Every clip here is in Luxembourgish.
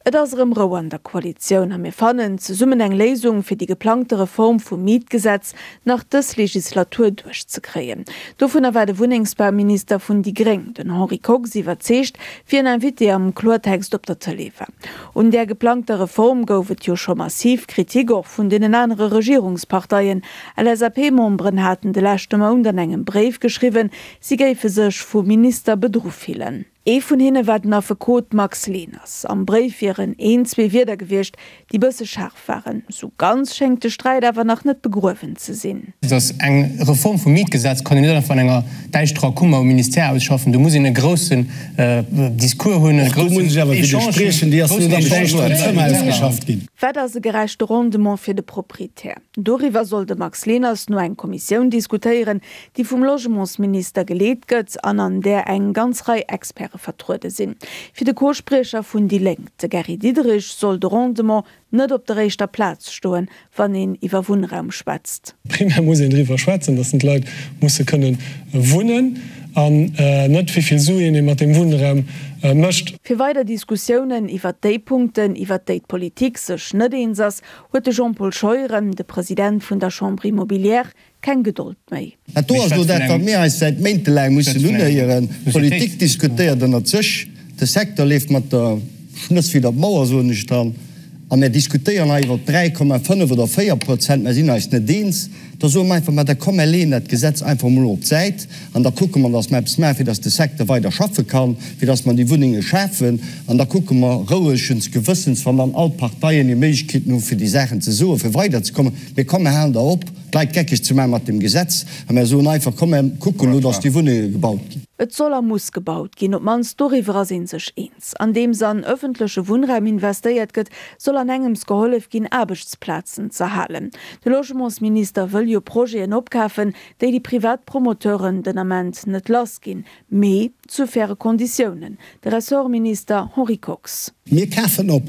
Et ass erëm Rou an der Koalitioun a mir fannen zesummen eng Léisung, fir déi geplangte Reform vum Mietgesetz nach dës Legislatur duerchzekréien. Dovunner war de Wunnengsbauminister vun déi gréng, den Henri Kox, iwwerzeegt, wéi en Invité am Kloertext op der Tëlee war. Un där geplangter Reform gouf et jo scho massiv Kritik, och vun deenen anere Regierungsparteien. LSAP-Memberen haten de leschte Mount an engem Bréif geschriwwen, si géife sech vum Minister bedru fillen. Ee vun hinne war den Affekot Max Leners. Am Bréif wieren een, zwee Wierder gewiescht, déi bësse schaarf waren. Sou ganz schéngt de Sträit awer nach net begruewen ze sinn. Dass eng Reform vum Mietgesetz kann een net einfach an enger däischterer Kummer um Ministère ausschaffen. Do muss een e groussen Discours hunn, e groussen Echange. Wat ass e gerechte Rendement fir de Proprietär? Doriwwer soll de Max Leners no eng Kommissioun diskutéieren, déi vum Logementsminister geleet gëtt an an där eng ganz Rei Experte vertruede sinn. Fir de Co-Spriecher vun déi Lénk, de Gary Diderich, soll de Rendement net op der éischter Plaz stoen, wann een iwwer Wunnraum schwätzt. Primär muss een driwwer schwätzen, datt d'Leit musse kënne wunnen an net wéi vill Suen ee mat deem Wunnraum mécht. Fir weider Diskussiounen iwwert déi Punkten, iwwert déi d'Politik sech net eens ass, huet de Jean-Paul Scheuren, de President vun der Chambre immobilière, keng Gedold méi. Dat do ass elo dat, wat mir eis säit méintelaang mussen unhéieren. D'Politik diskutéiert ënnert sech, de Secteur leeft mat der Schnëss widder d'Mauer, soen ech dann, a mir diskutéieren hei iwwer 3,5 oder 4 Prozent, mer sinn eis net eens. Da soe mer einfach, ma da komm, mer leeën dat Gesetz einfach emol op d'Säit an da kucke mer, datt mer eppes maachen, fir datt de Secteur weider schaffe kann, fir datt mer déi Wunnenge schafen. An da kucke mer rouegens Gewëssens, wann dann all d'Parteien hir Méiglechkeeten hu fir déi Saachen ze soen, fir weiderzekommen. Mee komm, mer halen da op, d'Leit geckeg ze maachen mat deem Gesetz, a mer soen einfach, Komm, mer kucken elo, dass déi Wunnenge gebaut ginn. Et soll a muss gebaut ginn, op d'mannst doriwwer ass ee sech eens. Andeems an ëffentleche Wunnraum investéiert gëtt, soll an engems gehollef ginn, Aarbechtsplazen z'erhalen. De Logementsminister wëll jo Projeten opkafen, déi déi privat Promoteuren den Ament net lass ginn. Mee zu faire Konditiounen. De Ressortminister Henri Kox. Mir kafen op,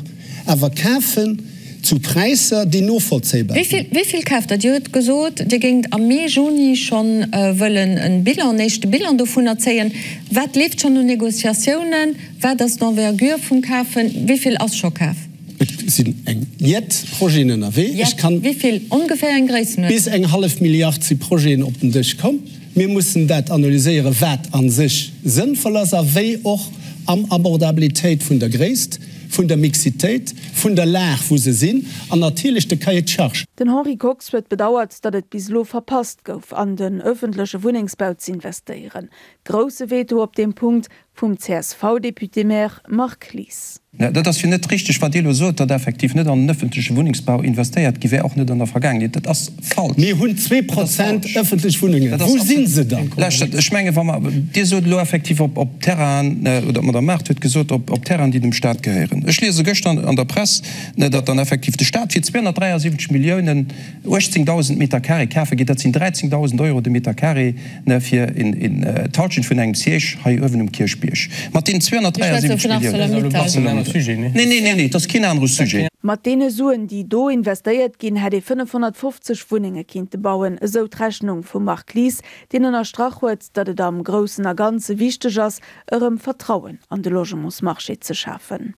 awer kafen zu Präisser, déi novollzéibar sinn. Wéi vill kaaft Der? Dir hutt gesot, Dir géingt am Mee, Juni schonn wëllen e Bilan, en éischte Bilan dovunner zéien. Wat leeft schonn un Négociatiounen? Wat ass d'Envergure vum Kafen? Wéi vill ass scho kaf? Et sinn eng jett Projeten ënnerwee. Jett? Wéi vill? Ongeféier eng Gréissenuerdnung? Bis eng hallef Milliard si Projeten op den Dësch komm. Mir mussen dat analyséieren, wat a sech sënnvoll ass a wéi och am Abordabilitéit vun der Gréisst, vun der Mixitéit, vun der Lag, wou se sinn, an natierlech de Cahier de charges. Den Henri Kox huet bedauert, datt et bis elo verpasst gouf, an den ëffentleche Wunnengsbau z'investéieren. Grousse Veto op deem Punkt Vum CSV-Député-maire Marc Lies. Dat ass jo net richteg, wat Dir elo sot, datt effektiv net an den ëffentleche Wunnengsbau investéiert gi wär, och net an der Vergaangenheet. Dat ass falsch. Mir hunn 2% ëffentlech Wunnengen. Wou si se dann? Lauschtert, ech mengen, wa mer, Dir sot elo effektiv op, op Terrainen, oder d'Madame Mart huet gesot, op, op Terrainen, déi dem Stat gehéieren. Ech liese gëschter an der Press, datt dann effektiv de Stat fir 273 Milliounen 18.000 Meter carré kafe geet. Dat sinn 13.000 Euro de Meter carré. Fir d'Halschent vun engem Siège hei uewen um Kierchbierg mat deenen 273 Milliounen. Neen, neen, neen, et ass keen anere Sujet. Mat deene Suen, déi do investéiert ginn, hätt ee 550 Wunnenge kinnte bauen, esou d'Rechnung vum Marc Lies, deen ënnerstrach huet, datt et am Groussen a Ganze wichteg ass, erëm Vertrauen an de Logementsmarché ze schafen.